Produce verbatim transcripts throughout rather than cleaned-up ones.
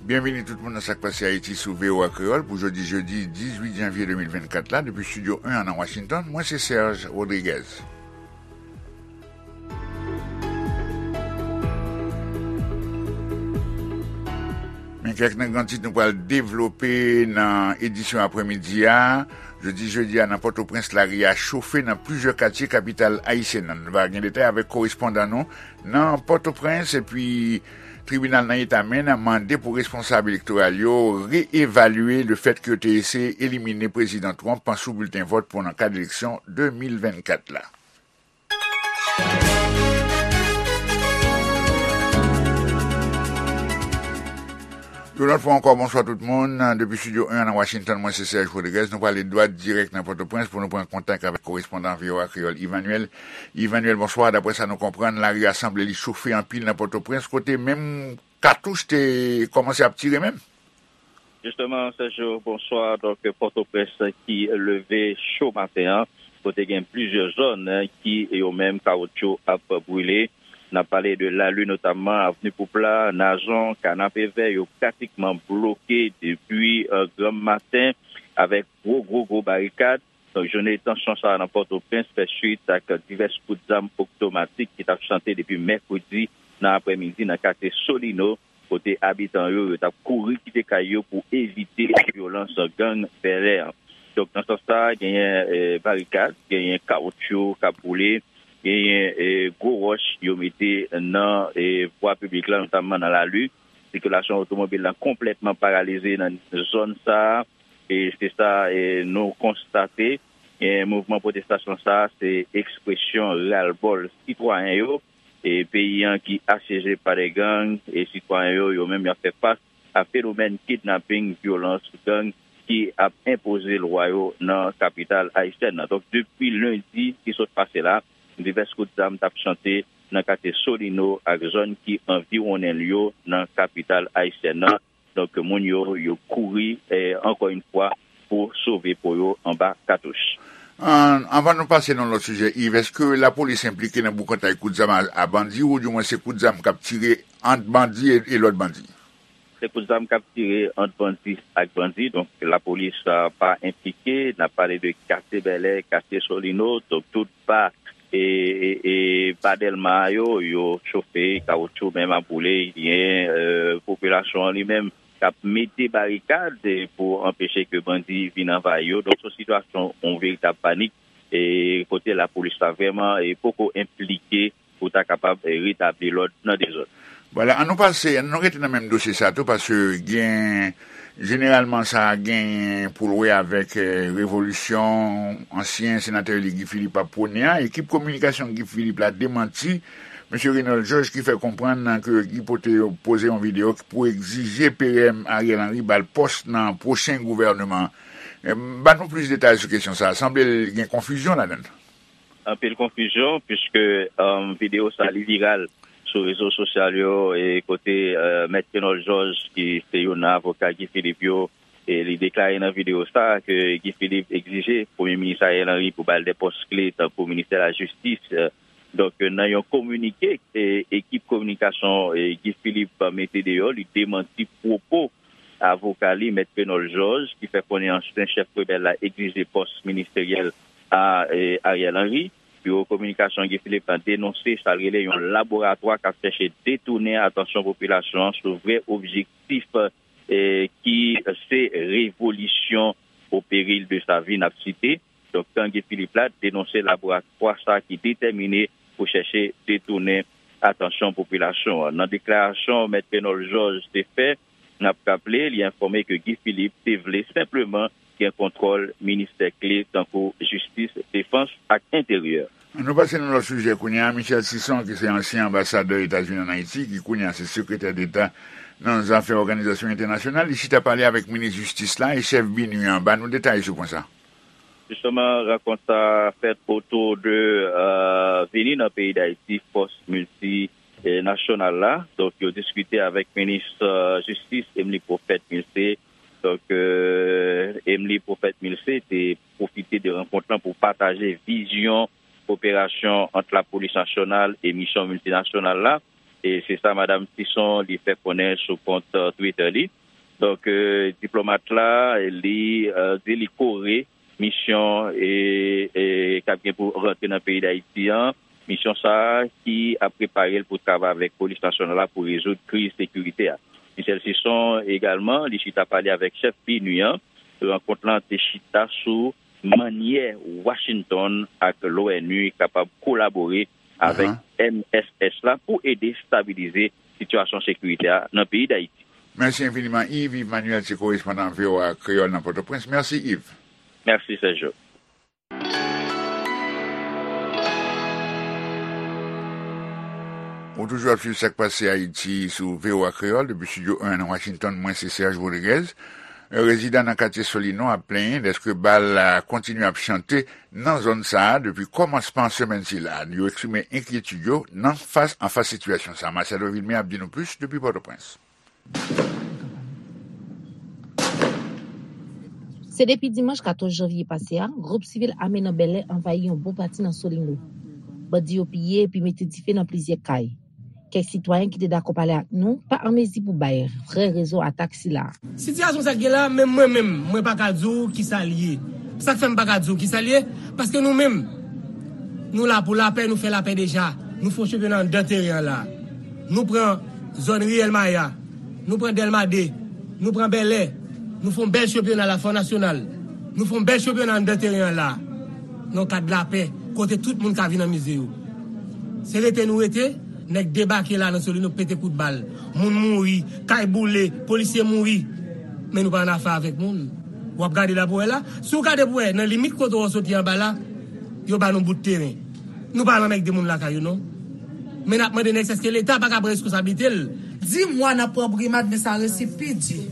Byenvini tout moun nan Sa k Pase Ayiti sou V O A Kreyòl pou jodi jedi dizuit janvye de mil vennkat la, depi Estidyo en an nan Washington, mwen se Serge Rodriguez. Men kèk nan gran tit nou pral devlope nan edisyon aprèmidi a. Jodi jedi a nan Pòtoprens, lari a chofe nan plizyè katye kapital ayisyèn nan. Nou va gen detay avèk korespondan nou nan Pòtoprens, epi tribinal nan eta Maine mande pou responsab elektoral yo reevalye lefèt ke yo te eseye elimine Prezidan Trump sou bilten vòt pou nan kad eleksyon de mil vennkat la. Yon lòt fwa ankò, bonswa tout moun. Depi Estidyo en an nan Washington, mwen se Serge Rodriguez. Nou pral dwat dirèk nan Pòtoprens pou nou pran kontak avèk korespondan V O A Kreyòl, Emmanuel. Emmanuel, bonswa. Daprè sa nou konprann, lari a sanble li chofe anpil nan Pòtoprens, kote menm katouch te kòmanse ap tire menm. Jisteman, Sergio, bonswa. Donk, Pòtoprens ki leve cho maten an, kote gen plizyè zòn, eh, ki yo menm kawotchou ap brile. N ap pale de Lali, notamman Avni Poupla, Nazon, Kanapevè, yo pratikman bloke depi, eh, granm maten avèk gwo, gwo, gwo barikad. Donk, jounen tansyon sa a nan Pòtoprens fè swit ak divès kout zam otomatik ki t ap chante depi mèkredi nan aprèmidi nan katye Solino, kote abitan yo, yo t ap kouri kite kay yo pou evite vyolans gang Bèlè an. Donk, nan sans sa a, genyen, eh, barikad, genyen kawotchou k ap boule, genyen, eh, gwo wòch yo mete nan, eh, vwa piblik la, notamman nan Lali. Sikilasyon otomobil la konplètman paralize nan zòn sa a. E se sa, eh, nou konstate. Eh, mouvman pwotestasyon sa a, se ekspresyon ralbòl sitwayen yo. E peyi an ki asyeje pa de gang, e sitwayen yo, yo menm y ap fè fas a fenomèn kidnaping, vyolans, gang ki ap enpoze lwa yo nan kapital ayisyèn nan. Donk, depi lendi ki sot pase la, divès kout zam t ap chante nan katye Solino ak zòn ki anviwonnen l yo nan kapital ayisyèn nan. Donk, moun yo, yo kouri, eh, ankò yon fwa, pou sove po yo anba katouch. An, anvan nou pase nan lòt sijè, Yves, èske lapolis enplike nan boukantay kout zam a, a bandi, oudimwen se kout zam k ap tire ant bandi e, e lòt bandi? Se kout zam k ap tire ant bandi ak bandi, donk lapolis, ah, pa enplike. N ap pale de katye Bèlè, katye Solino, donk tout ba e, e, e ba Dèlma a yo, yo chofe, kawotchou menm ap boule, gen, eh, popilasyon an li menm k ap mete barikad, eh, pou anpeche ke bandi vin anvayi yo. Donk, se yon sitiyasyon, yon veritab panik, e kote lapolis la vrèman, eh, poko enplike pou ta kapab, eh, retabli lòd nan de zòn. Vwala, an nou pase, an nou rete nan menm dosye sa tou, paske gen, jeneralman sa genyen pou l wè avèk, eh, revolisyon ansyen senatè eli Guy Philippe ap pwone a. Ekip kominikasyon Guy Philippe la demanti mesye Renold Georges ki fè konprann ke Guy pote, poze yon videyo pou egzije P M Ariel Henry ba l pòs nan pwochen gouvèneman an. Eh, ban nou plis detay sou kesyon sa a. Sanble l gen konfizyon ladan l. Anpil konfizyon, piske, um, videyo sa li viral sou rezo sosyal yo, e kote, uh, Mèt Renold Georges, ki se youn nan avoka Guy Philippe yo, e li deklare nan videyo sa ke Guy Philippe egzije Premye Minis Ariel Henry pou ba l de pòs kle tankou ministè lajistis. Uh, donk, nan yon kominike, e, ekip kominikasyon, e, Guy Philippe mete deyò, li demanti pwopo avoka li, Mèt Renold Georges, ki fè konnen ansyen chèf rebèl la egzije pòs ministeryèl a, e, Ariel Henry. Biwo kominikasyon Guy Philippe la denonse sa l rele yon laboratwa k ap chèche detounen atansyon popilasyon an sou vrè objektif, e, ki se revolisyon au péril de sa vie, n ap site. Donk, gang Guy Philippe la denonse laboratwa sa ki detèmine pou chèche detounen atansyon popilasyon an. Nan deklarasyon Mèt Renold Georges te fè, n ap raple, li enfòme ke Guy Philippe te vle senpleman gen kontwòl ministè kle tankou jistis, defans ak enteryè. An nou pase nan lòt sijè kounye a. Michel Sison, ki se ansyen anbasadè Etazini ann Ayiti, ki kounye a se sekretè deta nan zafè òganizasyon entènasyonal, li chita pale avèk minis jistis la e chèf BINUH an. Ban nou detay sou pwen sa. Jisteman, rankont sa a fèt otou de, euh, vini nan peyi Dayiti fòs miltinasyonal la. Donk, yo diskite avèk minis, euh, jistis, Emmelie Prophète-Milcé. Donk, euh, Emmelie Prophète-Milcé te pwofite de rankont lan pou pataje vizyon koperasyon ant lapolis nasyonal e misyon miltinasyonal la. E se sa Madanm Sison li fè konnen sou kont, eh, Twitter li. Donk, eh, diplomat la, li, eh, di li kore misyon, eh, eh, k ap gen pou rantre nan peyi Dayiti an. Misyon sa a ki ap prepare l pou travay avèk polis nasyonal la pou rezoud kriz sekirite a. Michel Sison egalman, li chita pale avèk chèf PNUD an. Rankont lan te chita sou mannyè Washington ak l'ONU kapab kolabore avèk M S S la pou ede stabilize sitiyasyon sekirite a nan peyi Dayiti. Mèsi enfiniman, Yves. Yves Manuel se korespondan V O A Kreyòl nan Pòtoprens. Mèsi, Yves. Mèsi, Sergio. Ou toujou ap swiv Sa k Pase Ayiti sou V O A Kreyòl depi Estidyo en nan Washington. Mwen se Serge Rodriguez. Rezidan nan katye Solino ap plenyen dèske bal kontinye ap chante nan zòn sa a depi kòmansman semèn sila. Yo eksprime enkyetid yo nan fas anfas sitiyasyon sa a. Marcelo Vilmé ap di nou plis depi Pòtoprens. Se depi dimanch katòz janvye pase a, gwoup sivil ame nan Bèlè anvayi yon bon pati nan Solino. Bandi yo piye epi mete dife nan plizyè kay. Kèk sitwayen ki te dakò pale ak nou pa an mezi pou bay vrè rezon atak sila. Sitiyasyon sa k gen la, menm mwen menm, mwen pa ka di w kisa l ye. Sa k fè m pa ka di w kisa l ye, paske nou menm, nou la pou lapè, nou fè lapè deja. Nou fè yon chanpyona anndan teren an la. Nou pran zòn Riyèl Maya. Nou pran Dèlma de, nou pran Bèlè, nou fè yon bèl chanpyona la, fè yon nasyonal. Nou fè yon bèl chanpyona anndan teren an la. Nan kad lapè, kote tout moun ka vin anmize yo. Se rete nou rete, nèg debake la nan Solino, pete kout bal. Moun mouri, kay boule, polisye mouri. Men nou pa annafè avèk moun. W ap gade la pou wè la. Si w gade pou wè, nan limit kote w soti anba la, yo ba nou bout teren. Nou pa al anmègde moun lakay yo, non. Men n ap mande nèg sa, èske Leta pa ka pran reskonsablite l? Di mwa n ap pran brimad, men sa resi pi di.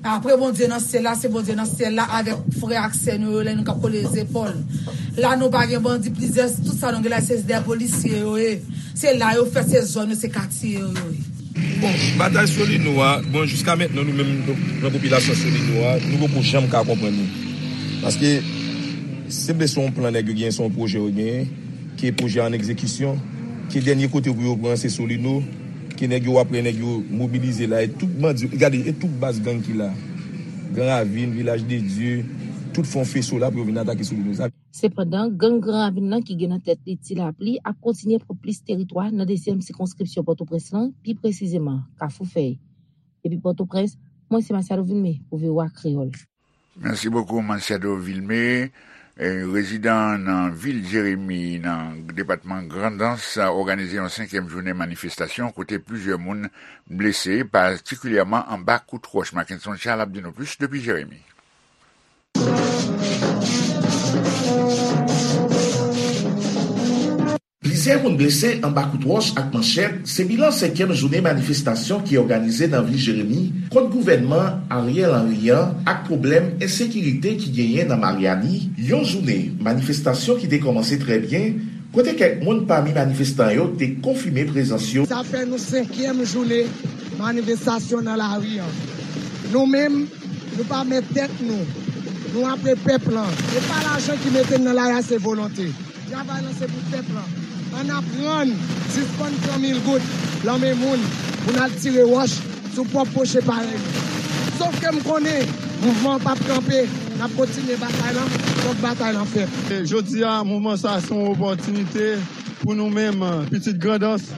Apre Bondye nan syèl la, se Bondye nan syèl la avèk frè ak sè nou yo, lè nou ka kole zepòl. La, nou pa gen bandi, plizyè, tout sa nou gen la, se dè polisye yo ye. Se la yo fèt, se zòn yo, se katye yo, yo ye. Bon, batay Solino a, bon, jiska mentnan, nou menm, nan popilasyon Solino a, nou poko janm ka konprann li. Paske, se vle se yon plan nèg yo genyen, se yon pwojè yo genyen, ke pwojè an egzekisyon, ke dènye kote pou yo pran se Solino, ke nèg yo, w ap wè nèg yo mobilize la, e tout bandi, gade, e tout baz gang ki la. Gran Ravin, Vilaj de Dye, tout fè yon feso la pou yo vin atake Solino. Sa Sepandan, gang Gran Ravin nan ki gen nan tèt li Ti Lapli ap kontinye pran plis teritwa nan dezyèm sikonskripsyon Pòtoprens lan, pi presizeman, Kafou Fèy. Depi Pòtoprens, mwen se Masiado Vilmé pou V O A Kreyòl. Mèsi bokou, Masiado Vilmé. E, rezidan nan vil Jeremi, nan depatman Grandans, òganize yon senkyèm jounen manifestasyon kote plizyè moun blese, patikilyèman anba kout wòch. Mackenson Charles ap di nou plis depi Jeremi. Plizyè moun blese anba kout wòch ak manchèt, se bilan senkyèm jounen manifestasyon ki òganize nan vil Jeremi kont gouvènman Ariel Henry an ak pwoblèm ensekirite ki genyen nan Maryani. Yon jounen manifestasyon ki te kòmanse trè byen, kote kèk moun pami manifestan yo te konfime prezans yo. Sa fè nou senkyèm jounen manifestasyon nan lari an. Nou menm, nou pa mèt tèt nou. Nou apre pèp lan. Se pa lajan ki mete n nan lari a, se volonte. Travay lan se pou pèp lan. Ann aprann sispann pran mil goud lan men moun pou n al tire wòch sou pwòp pwochen parèy nou. Sòf ke m konnen mouvman an p ap kanpe, n ap kontinye batay lan, fòk batay lan fèt. E jodi a, mouvman sa a se yon opòtinite pou nou menm, pitit Grandans,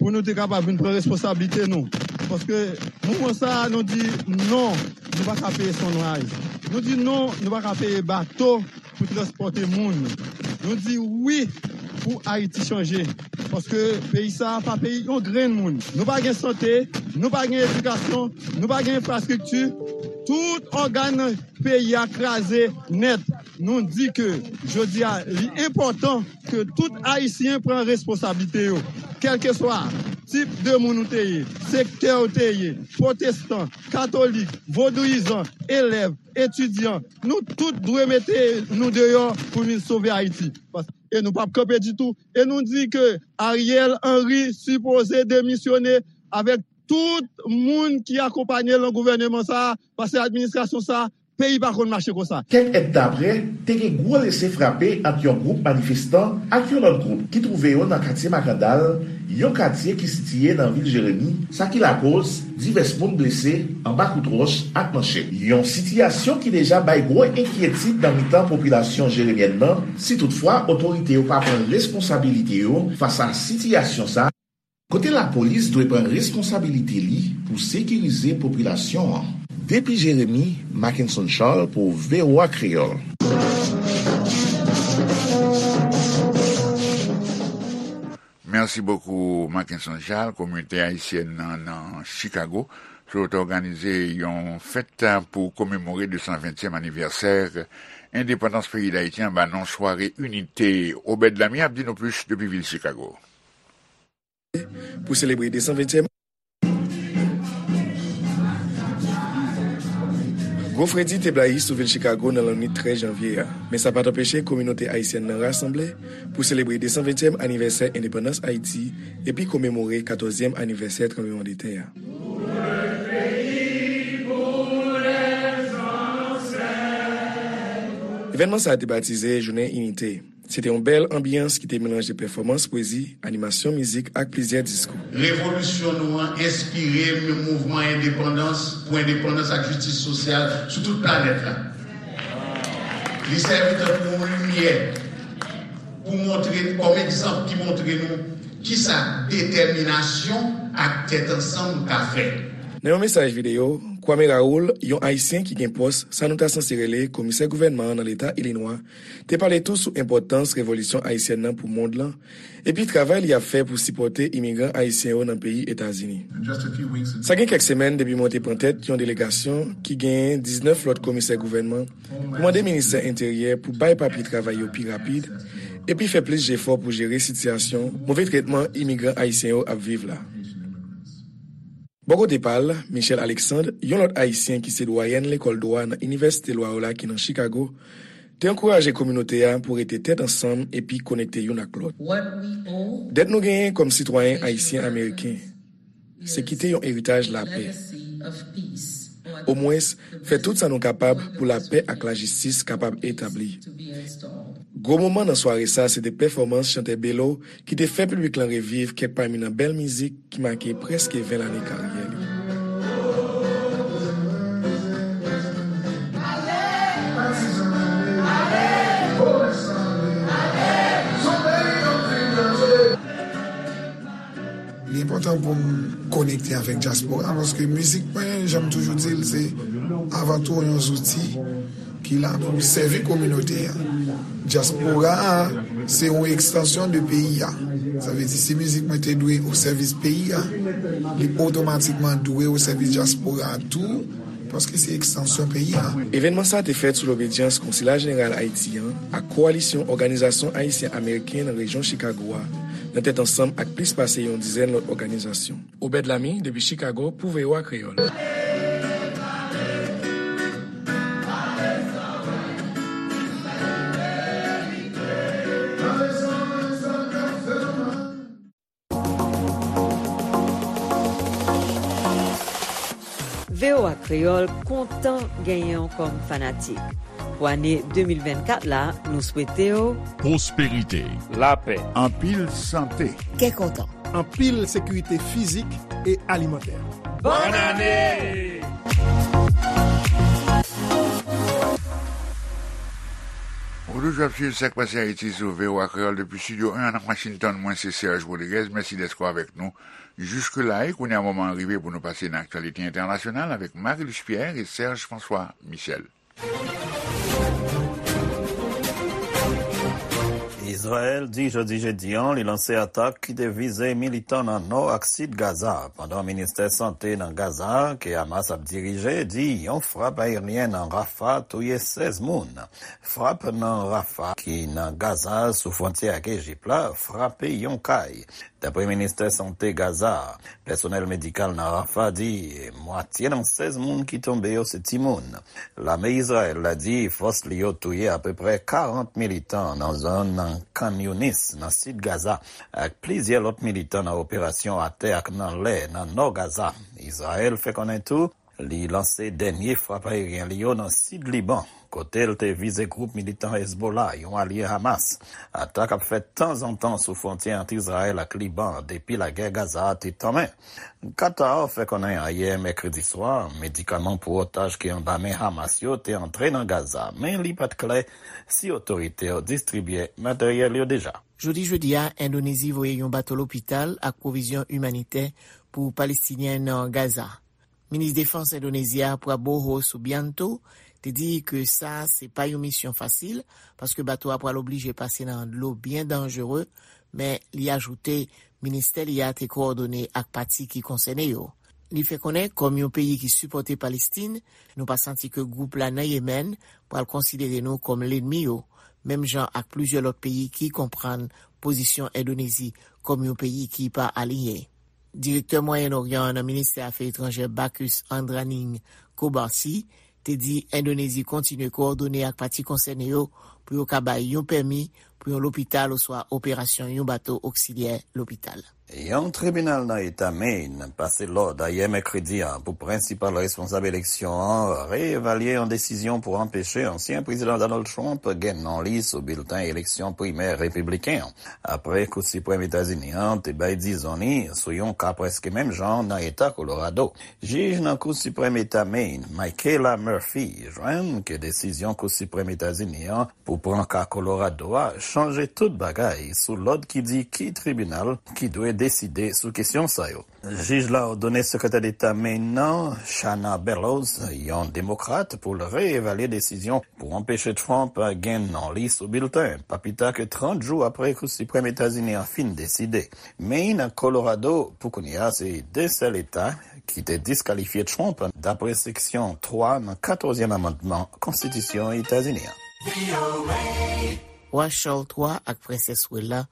pou nou te kapab vin pran responsablite nou. Paske mouvman sa a, nou di non, nou pa ka peye Sunrise. Nou di non, nou pa ka peye bato pou transpòte moun. Nou di wi pou Ayiti chanje. Paske peyi sa a pa peyi yon grenn moun. Nou pa gen sante, nou pa gen edikasyon, nou pa gen enfrastrikti. Tout ògàn peyi a kraze nèt. Nou di ke jodi a, li enpòtan ke tout Ayisyen pran responsablite yo. Kèlkeswa tip de moun ou te ye, sektè ou te ye, pwotestan, katolik, vodouyizan, elèv, etidyan, nou tout dwe mete nou deyò pou vin sove Ayiti. Pas-, e nou p ap kanpe ditou. E nou di ke Ariel Henry sipoze demisyone avèk tout moun ki akonpaye l nan gouvèneman sa a, paske administrasyon sa a Peyi pa konn mache konsa. Kèk èdtan apre, te gen gwo lese frape ant yon gwoup manifestan ak yon lòt gwoup ki twouve yo nan katye Makandal, yon katye ki sitiye nan vil Jeremi, sa ki lakoz divès moun blese anba kout wòch ak manchèt. Yon sitiyasyon ki deja bay gwo enkyetid nan mitan popilasyon jeremyèn nan, si toutfwa otorite yo pa pran responsabilite yo fas a sitiyasyon sa, kote lapolis dwe pran responsabilite li pou sekirize popilasyon an. Depi Jeremi, Mackenson Charles pou V O A Kreyòl. Merci beaucoup, Mackenson Charles. Kominote ayisyèn nan, nan Chicago sot òganize yon fèt pou komemore de san ventyèm anivèsè endepandans peyi Dayiti anba non Sware Inite. Obed Lami ap di nou plis depi vil Chicago. Pou selebre de san ventyèm. Gwo fredi te blayi sou vil Chicago nan lannwit trèz janvye a, men sa pa t anpeche kominote ayisyèn nan rasanble pou selebre de san ventyèm anivèsè endepandans Ayiti epi komemore katòzyèm anivèsè tranblemanndetè a. Evènman sa a te batize Jounen Inite. Se te yon bèl anbyans ki te melanje pèfòmans pwezi, animasyon mizik ak plizyè diskou. Revolisyon nou an enspire mouvman endepandans, pou endepandans ak jistis sosyal sou tout planèt la. Li sèvi tankou yon limyè pou montre, kòm egzanp ki montre nou kisa detèminasyon ak tèt ansanm ka fè. Nan yon mesaj videyo, Kwame Raoul, yon Ayisyen ki gen pòs sa nou ta sanse rele Komisè Gouvènman an nan Leta Ilinwa, te pale tou sou enpòtans revolisyon ayisyèn nan pou mond lan, epi travay li ap fè pou sipòte imigran ayisyen yo nan peyi Etazini. Sa gen kèk semèn depi mwen te pran tèt yon delegasyon ki genyen diznèf lòt komisè gouvènman pou mande ministè enteryè pou bay papye travay yo pi rapid, epi fè plis jefò pou jere sitiyasyon move tretman imigran ayisyen yo ap viv la. Bò kote pa l, Michel Alexandre, yon lòt Ayisyen ki se dwayèn lekòl dwa nan Inivèsite Loyola ki nan Chicago, te ankouraje kominote a pou rete tèt ansanm epi konekte youn ak lòt. Dèt nou genyen kòm sitwayen ayisyen ameriken, se kite yon eritaj lapè. Omwens, fè tout sa nou kapab pou lapè ak lajistis kapab etabli. Gwo moman nan sware sa se te pèfòmans chantè Belo ki te fè piblik lan reviv kèk pami nan bèl mizik ki make prèske ven lane karyè li. Li enpòtan pou m konekte avèk dyaspora, paske mizik mwen, jan m toujou di l, se avan tou yon zouti ki la pou sèvi kominote a. Dyaspora a, se yon ekstansyon de peyi a. Sa vle di, si mizik mwen te dwe o sèvis peyi a, li otomatikman dwe o sèvis dyaspora a tou, paske se ekstansyon peyi a. Evènman sa a te fèt sou lobedyans Konsila Jeneral Ayiti an ak Kowalisyon Òganizasyon Ayisyen Ameriken nan rejyon Chicago a, nan tèt ansanm ak plis pase yon dizèn lòt òganizasyon. Obed Lamy, depi Chicago, pou V O A Kreyòl. V O A Kreyòl kontan genyen w kòm fanatik. Pou ane de mil vennkat la, nou swete w pwosperite, lapè, anpil sante, kè kontan, anpil sekirite fizik e alimantè. Bòn ane! Ou toujou ap swiv Sa k Pase Ayiti sou V O A Kreyòl depi Estidyo en an nan Washington. Mwen se Serge Rodriguez. Mèsi dèske w avèk nou jiske la. E kounye a, moman an rive pou nou pase nan aktyalite entènasyonal avèk Marie-Luce Pierre e Serge François Michel. Izrayèl di jodi jedi an li lanse atak ki te vize militan nan nò ak sid Gaza, pandan ministè sante nan Gaza, ke Hamas ap dirije, di yon frap ayeryen nan Rafah touye sèz moun. Frap nan Rafah, ki nan Gaza, sou fwontyè ak Ejip la, frape yon kay. Dapre ministè sante Gaza a, pèsonèl medikal nan Rafah di mwatye nan sèz moun ki tonbe yo se timoun. Lame Izrayèl la di fòs li yo touye apeprè karant militan nan zòn Khan Younis, nan sid Gaza, ak plizyè lòt militan nan operasyon atè ak nan lè nan nò Gaza. Izrayèl fè konnen tou Li lanse dènye frap ayeryen li yo nan sid Liban, kote l te vize gwoup militan Hezbollah, yon alye Hamas. Atak ap fèt tanzantan sou fwontyè ant Izrayèl ak Liban depi lagè Gaza a te tanmen. Qatar fè konnen ayè mèkredi swa, medikaman pou otaj ki anba men Hamas yo te antre nan Gaza, men li pa t klè si otorite yo distribye materyèl yo deja. Jodi jedi a, Endonezi voye yon bato lopital ak pwovizyon imanitè pou Palestinyen nan Gaza. Minis Defans Endonezi a, Prabowo Subianto, te di ke sa se pa yon misyon fasil, paske bato a pral oblije pase nan dlo byen danjere, men li ajoute ministè li a te kowòdone ak pati ki konsène yo. Li fè konnen, kòm yon peyi ki sipòte Palestin, nou pa santi ke gwoup la nan Yemèn pral konsidere nou kòm lènmi yo, menm jan ak plizyè lòt peyi ki konprann pozisyon Endonezi kòm yon peyi ki pa aliyen. Direktè Mwayen Oryan an nan ministè afè etranjè Bacchus Andraning Kobarsi te di Endonezi kontinye kowòdone ak pati konsène yo pou yo ka bay yon pèmi pou yon lopital oswa operasyon yon bato oksilyè lopital. Yon tribinal nan eta Maine pase lòd ayè mèkredi a pou prensipal responsab eleksyon an reevalye yon desizyon pou anpeche ansyen prezidan Donald Trump gen non li sou bilten eleksyon primè repibliken an, apre Kou Siprèm Etazini an te bay dizon li sou yon ka prèske menm jan nan eta Kolorado. Jij nan Kou Siprèm Eta Maine, Michaela Murphy, jwenn ke desizyon Kou Siprèm Etazini an pou pran ka Kolorado a chanje tout bagay sou lòd ki di ki tribinal ki dwe deside sou kesyon sa yo. Jij la òdone Sekretè Deta Maine nan, Shanna Bellows, yon demokrat, pou l reevalye desizyon pou anpeche Trump gen non li sou bilten, pa pita ke trant jou apre Kou Siprèm Etazini an fin deside. Maine ak Colorado, pou kounye a, se de sèl eta ki te diskalifye Trump, dapre seksyon twa nan katòzyèm amannman Konstitisyon Etazini an. Wa Charles twa ak Prensès Wella,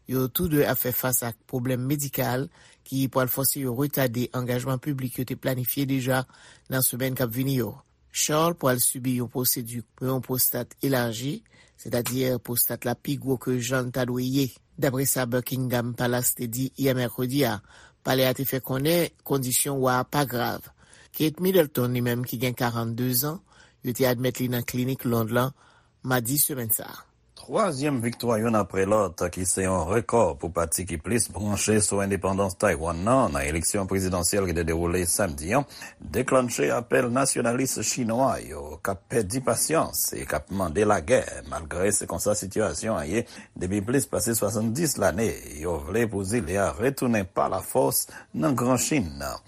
yo tou de ap fè fas ak pwoblèm medikal ki pral fòse yo retade angajman piblik yo te planifye deja nan semèn k ap vini yo. Charles pral sibi yon pwosedi pou yon pwostat elaji, sètadi pwostat la pi gwo ke jan l ta dwe ye. Dapre sa Buckingham Palace te di yè mèkredi a, palè a te fè konnen kondisyon wa a pa grav. Kate Middleton, li menm ki gen karannde zan, yo te admèt li nan klinik Lond lan madi semèn sa a. Twazyèm viktwa youn apre lòt, ki se yon rekò pou pati ki plis branche sou endepandans Taiwan nan, nan eleksyon prezidansyèl ki te dewoule samdi an, deklanche apèl nasyonalis chinwa yo k ap pèdi pasyans e k ap mande lagè, malgre se konsa sitiyasyon an ye depi plis pase swasanndis lane. Yo vle pou zile a retounen pa lafòs nan Gran Chin nan.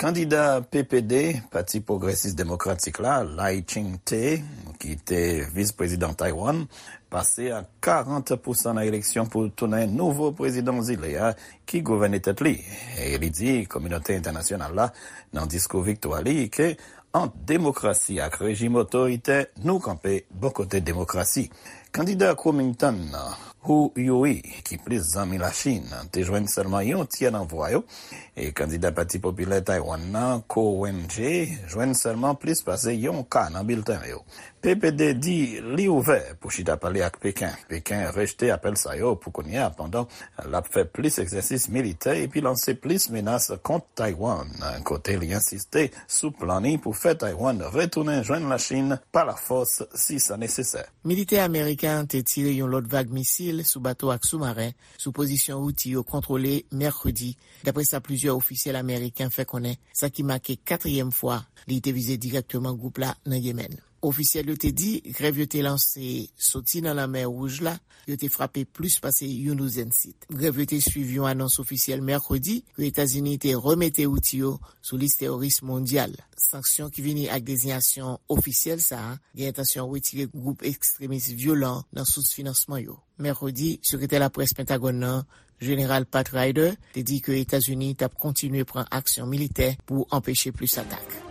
Kandida P P D, Pati Pwogresis Demokratik la, Lai Ching-te, ki te vis prezidan Taiwan, pase ak karant pousan nan eleksyon pou tounen nouvo prezidan zile a, ki gouvène tèt li. E li di kominote entènasyonal la, nan diskou viktwa li, ke ant demokrasi ak rejim otoritè, nou kanpe bò kote demokrasi. Kandida Kuomintang, Hou Yui, ki plis zanmi Lachin, te jwenn sèlman yon tyè nan vwa yo, e kandida Pati Popilè Taiwan nan, Ko Wen-je, jwenn sèlman plis pase yon ka nan bilten yo. P P D di li ouvè pou chita pale ak Peken. Peken rejte apèl sa yo pou kounye a, pandan l ap fè plis egzèsis militè epi lanse plis menas kont Taiwan, kote li ensiste sou plan li pou fè Taiwan retounen jwenn Lachin pa lafòs si sa nesesè. Militè ameriken an te tire yon lòt vag misil sou bato ak soumaren sou pozisyon Houthi yo kontwole mèkredi, dapre sa plizyè ofisyèl ameriken fè konnen, sa ki make katriyèm fwa li te vize dirèkteman gwoup la nan Yemèn. Ofisyèl yo te di grèv yo te lanse soti nan Lanmè Wouj la, yo te frape plis pase yon douzèn sit. Grèv yo te swiv yon anons ofisyèl mèkredi ke Etazini te remete Houthi yo sou lis teworis mondyal. Sanksyon ki vini ak dezinyasyon ofisyèl sa a gen entansyon retire gwoup ekstremis vyolan nan sous finansman yo. Mèkredi, sekretè laprès Pentagòn nan, Jeneral Pat Ryder, te di ke Etazini t ap kontinye pran aksyon militè pou anpeche plis atak.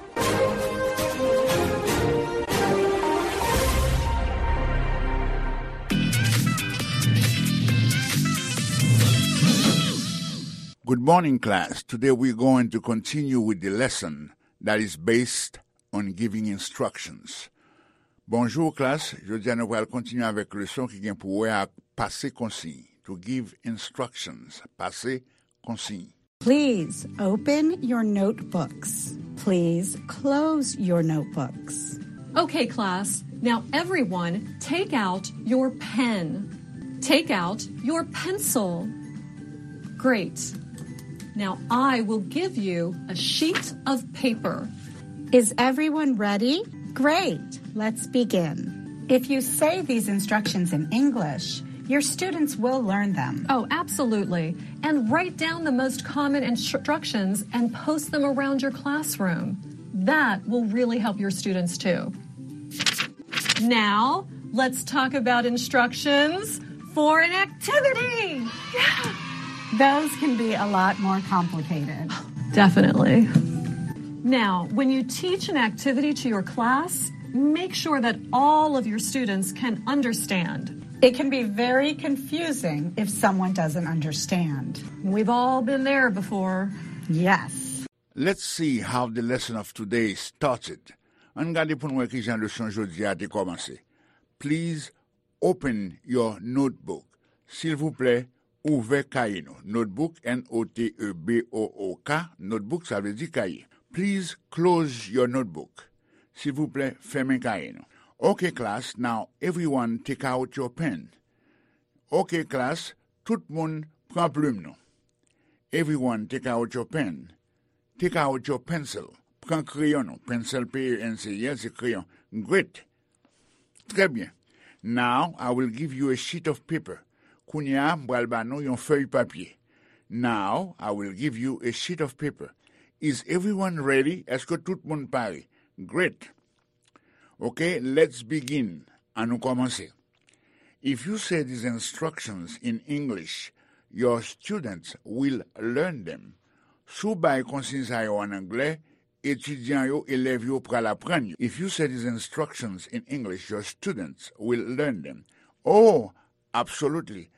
Good morning, class. Today we're going to continue with the lesson that is based on giving instructions. Bonjou, klas. Jodi a, nou pral kontinye avèk leson ki gen pou wè ak pase konsiy. To give instructions. Pase konsiy. Please open your notebooks. Please close your notebooks. Okay, class, now everyone take out your pen. Take out your pencil. Great. Now I will give you a sheet of paper. Is everyone ready? Great. Let's begin. If you say these instructions in English, your students will learn them. Oh, absolutely. And write down the most common instructions and post them around your classroom. That will really help your students too. Now, let's talk about instructions for an activity. Yeah. Those can be a lot more complicated. Definitely. Now, when you teach an activity to your class, make sure that all of your students can understand. It can be very confusing if someone doesn't understand. We've all been there before. Yes. Let's see how the lesson of today started. Ann gade pou n wè kijan leson jodi a te kòmanse. Please open your notebook. Silvouplè, ouvè kaye nou. Notebook, N O T E B O O K, notebook sa vle di kaye. Please close your notebook. Silvouplè, fèmen kaye nou. Okay, class, now everyone take out your pen. Okay, class, tout moun pran plim nou. Everyone take out your pen. Take out your pencil. Pran kreyon nou. Pencil, P E N C I L, se kreyon. Great. Trè byen. Now, I will give you a sheet of paper. Kounye a, m pral ba nou yon fèy papye. Now, I will give you a sheet of paper. Is everyone ready? Èske tout moun pare? Great. Okay, let's begin. Ann nou kòmanse. If you say these instructions in English, your students will learn them. Si w bay konsiy sa yo an anglè, etidyan yo, elèv yo pral aprann yo. If you say these instructions in English, your students will learn them. Oh, absolutely.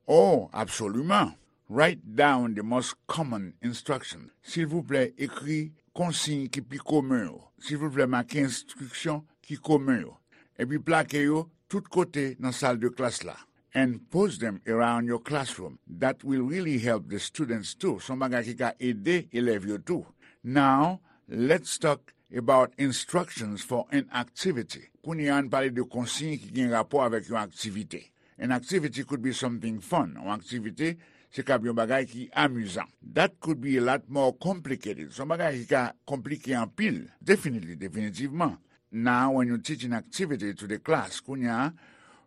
Oh, absolument. Write down the most common instruction. Silvouplè, ekri konsiy ki pi komen yo. Silvouplè, make enstriksyon ki komen yo. Epi plake yo tout kote nan sal de klas la. And post them around your classroom. That will really help the students too. Se yon bagay ki ka ede elèv yo tou. Now, let's talk about instructions for an activity. Kounye a, ann pale de konsiy ki gen rapò avèk yon aktivite. An activity could be something fun. Yon aktivite, se kab yon bagay ki amizan. That could be a lot more complicated. Se yon bagay ki ka konplike anpil. Definitely, definitivman. Now, when you teach an activity to the class, kounye a,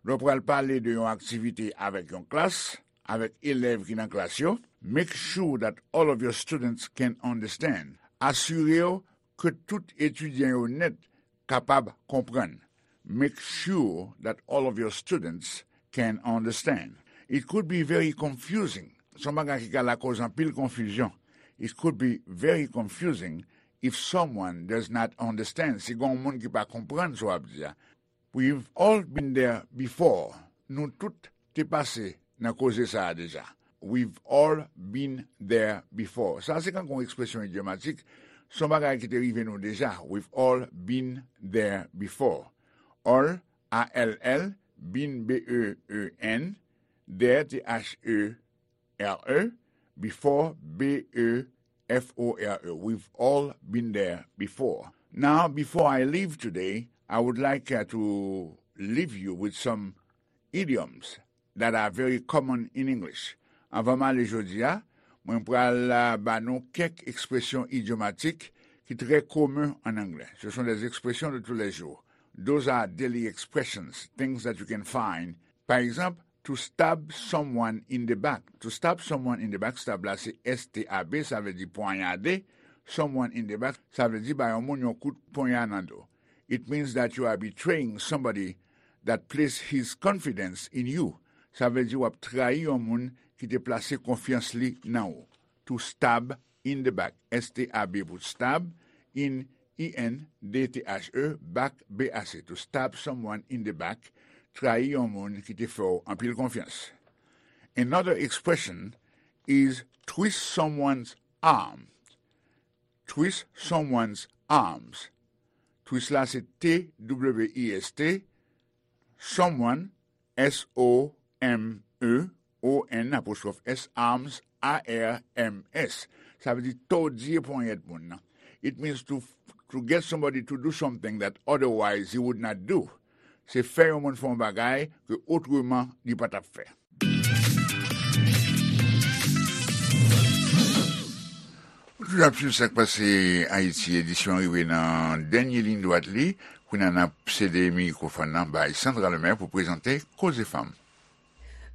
lè w pral pale de yon aktivite avèk yon klas, avèk elèv ki nan klas yo, make sure that all of your students can understand. Asire w ke tout etidyan yo nèt kapab konprann. Make sure that all of your students can understand. It could be very confusing. Se yon bagay ki ka lakòz anpil konfizyon. It could be very confusing if someone does not understand. Si gen yon moun ki pa konprann sa w ap di a. We've all been there before. Nou tout te pase nan koze sa a deja. We've all been there before. Sa se kankou yon ekspresyon idyomatik. Se yon bagay ki te rive nou deja. We've all been there before. All, A L L, been, B E E N, there, T H E R E, before, B E F O R E. We've all been there before. Now, before I leave today, I would like uh, to leave you with some idioms that are very common in English. Anvan m ale jodi a, mwen pral uh, ba nou kèk ekspresyon idyomatik ki trè komen an anglè. Ce sont des expressions de tous les jours. Those are daily expressions, things that you can find. Pa egzanp, to stab someone in the back. To stab someone in the back, stab la se S T A B, sa vle di pwanyade. Someone in the back, sa vle di ba yon moun yon kout ponya nan do. It means that you are betraying somebody that placed his confidence in you. Sa vle di w ap trayi yon moun ki te plase konfyans li nan ou. To stab in the back. S T A B pou stab, in, I N, D T H E, back, B A C. To stab someone in the back, trayi yon moun ki te fè w anpil konfyans. Another expression is twist someone's arm. Twist someone's arms. Twist la se T W I S T, someone, S O M E O N apostwòf S, arms, A R M S. Sa vle di tòdi ponyèt moun nan. It means to, to get somebody to do something that otherwise he would not do. Se fè yon moun fè yon bagay ke otreman li pa t ap fè. Ou toujou ap swiv Sa k Pase Ayiti, edisyon rive nan dènye liy dwat li. Kounye a n ap sede mikwofòn nan bay Sandra Lemaire pou prezante Koze Fanm.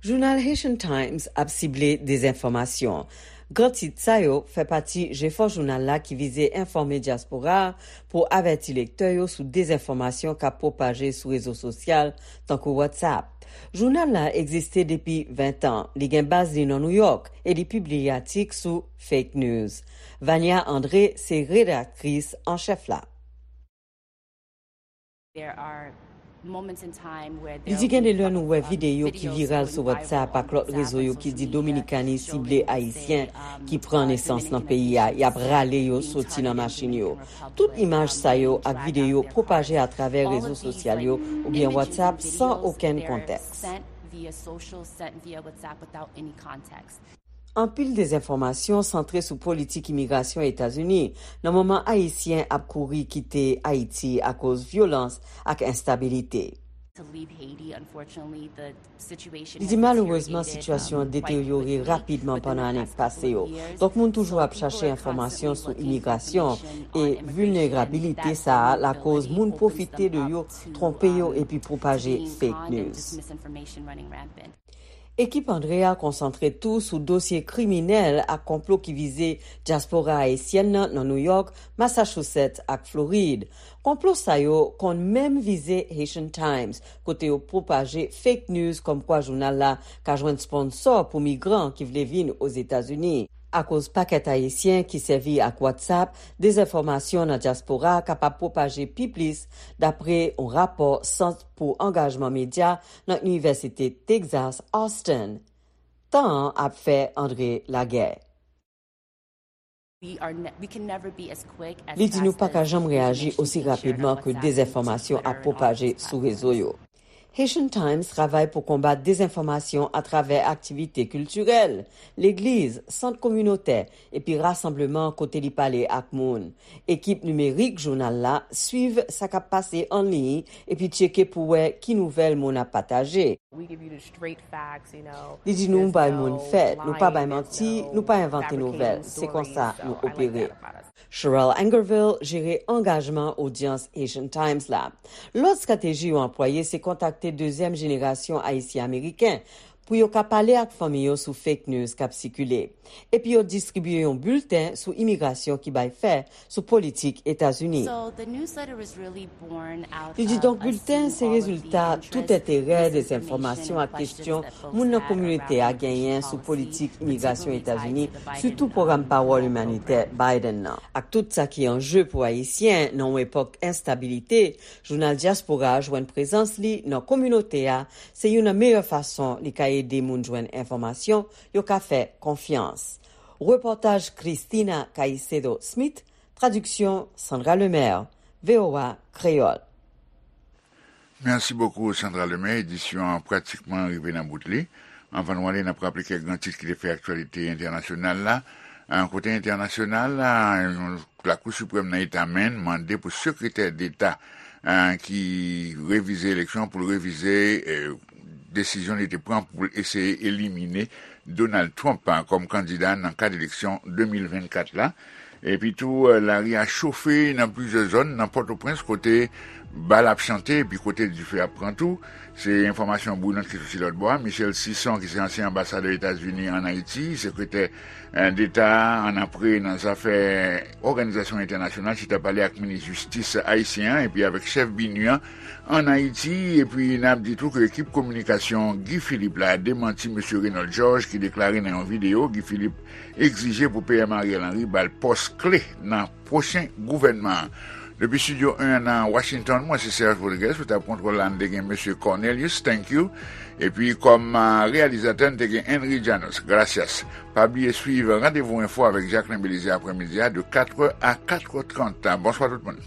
Jounal Haitian Times ap sible dezenfòmasyon. Gran tit sa yo fè pati jefò jounal la ki vize enfòme dyaspora a pou avèti lektè yo sou dezenfòmasyon k ap pwopaje sou rezo sosyal, tankou WhatsApp. Jounal la egziste depi ven tan. Li gen baz li nan Nouyòk e li pibliye atik sou fake news. Vania André se redaktris an chèf la. There are moments in time where Li di gen de lè nou wè videyo ki viral sou WhatsApp ak lòt rezo yo ki di Dominikani sible Ayisyen ki pran nesans nan peyi a, y ap rale yo soti nan machin yo. Tout imaj sa yo ak videyo pwopaje atravè rezo sosyal yo oubyen WhatsApp san okenn kontèks. Anpil dezenfòmasyon santre sou politik imigrasyon Etazini nan moman Ayisyen ap kouri kite Ayiti akoz vyolans ak enstabilite. Li di malerezman sitiyasyon an deteryore rapidman pandan ane k pase yo. Donk moun toujou ap chache enfòmasyon sou imigrasyon e vilnerabilite sa a lakoz moun pwofite de yo, twonpe yo epi pwopaje fake news. Ekip André a konsantre tou sou dosye kriminèl ak konplo ki vize dyaspora ayisyèn nan nan Nouyòk, Massachusetts ak Florid. Konplo sa yo konn menm vize Haitian Times, kote yo pwopaje fake news kòmkwa jounal la ka jwenn sponsò pou migran ki vle vin Ozetazini. Akoz pakèt Ayisyen ki sèvi ak WhatsApp, dezenfòmasyon nan dyaspora kapab pwopaje pi plis, dapre yon rapò Sant pou Angajman Medya nan Inivèsite Texas Austin. Tan an ap fè André lagè. Li di nou pa ka janm reyaji osi rapidman ke dezenfòmasyon ap pwopaje sou rezo yo. Haitian Times travay pou konbat dezenfòmasyon atravè aktivite kiltirèl, legliz, sant kominotè, epi rasanbleman kote li pale ak moun. Ekip nimerik jounal la swiv sa k ap pase an liy epi tcheke pou wè ki nouvèl moun ap pataje. Li di nou bay moun fèt, nou pa bay manti, nou pa envante nouvèl. Se konsa nou opere. Sherelle Angerville jere angajman odyans Haitian Times la. Lòt estrateji yo anplwaye se kontakte dezyèm jenerasyon Ayisyen Ameriken pou yo ka pale ak fanmi yo sou fake news k ap sikile. Epi yo distribye yon bilten sou imigrasyon ki bay fè sou politik Etazini. Li di donk bilten se rezilta tout enterè, dezenfòmasyon ak kesyon moun nan kominote a genyen sou politik imigrasyon Etazini, sitou pwogram pawòl imanitè Biden nan. Ak tout sa ki an je pou Ayisyen nan yon epòk enstabilite, jounal dyaspora a jwenn prezans li nan kominote a, se youn nan meyè fason li ka ede moun jwenn enfòmasyon yo ka fè konfyans. Repòtaj Christina Caicedo Smith, tradiksyon Sandra Lemaire, V O A Kreyòl. Mèsi bokou, Sandra Lemaire. Edisyon an pratikman rive nan bout li. Anvan nou ale, n ap raple kèk gran tit ki te fè aktyalite entènasyonal la. An kote entènasyonal la, yon Lakou Siprèm nan Eta Maine mande pou sekretè deta, eh, ki revize eleksyon pou l revize, eh, desizyon li te pran pou l eseye elimine Donald Trump, eh, kòm kandida nan kad eleksyon de mil vennkat la. Epi tou, eh, lari a chofe nan plizyè zòn nan Pòtoprens kote bal ap chante epi kote dife ap pran tou. Se enfòmasyon bouyinan ki soti lòt bò a. Michel Sison, ki se ansyen anbasadè Etazini ann Ayiti, sekretè, eh, deta annapre nan zafè òganizasyon entènasyonal, chita pale ak minis jistis ayisyen an epi avèk chèf BINUH an ann Ayiti. Epi n ap di tou ke ekip kominikasyon Guy Philippe la demanti mesye Raynold Georges ki deklare nan yon videyo Guy Philippe egzije pou P M Ariel Henry ba l pòs kle nan pwochen gouvènman an. Depi Estidyo en an nan Washington, mwen se Serge Rodriguez, sou tab kontwòl la, n te gen mesye Cornelius, thank you. Epi kòm, ah, reyalizatè, n te gen Henry Janos, gracias. Pa bliye swiv Randevou Enfo avèk Jacquelin Belizaire aprèmidi a de katrè a katrè trant. Bonswa tout moun.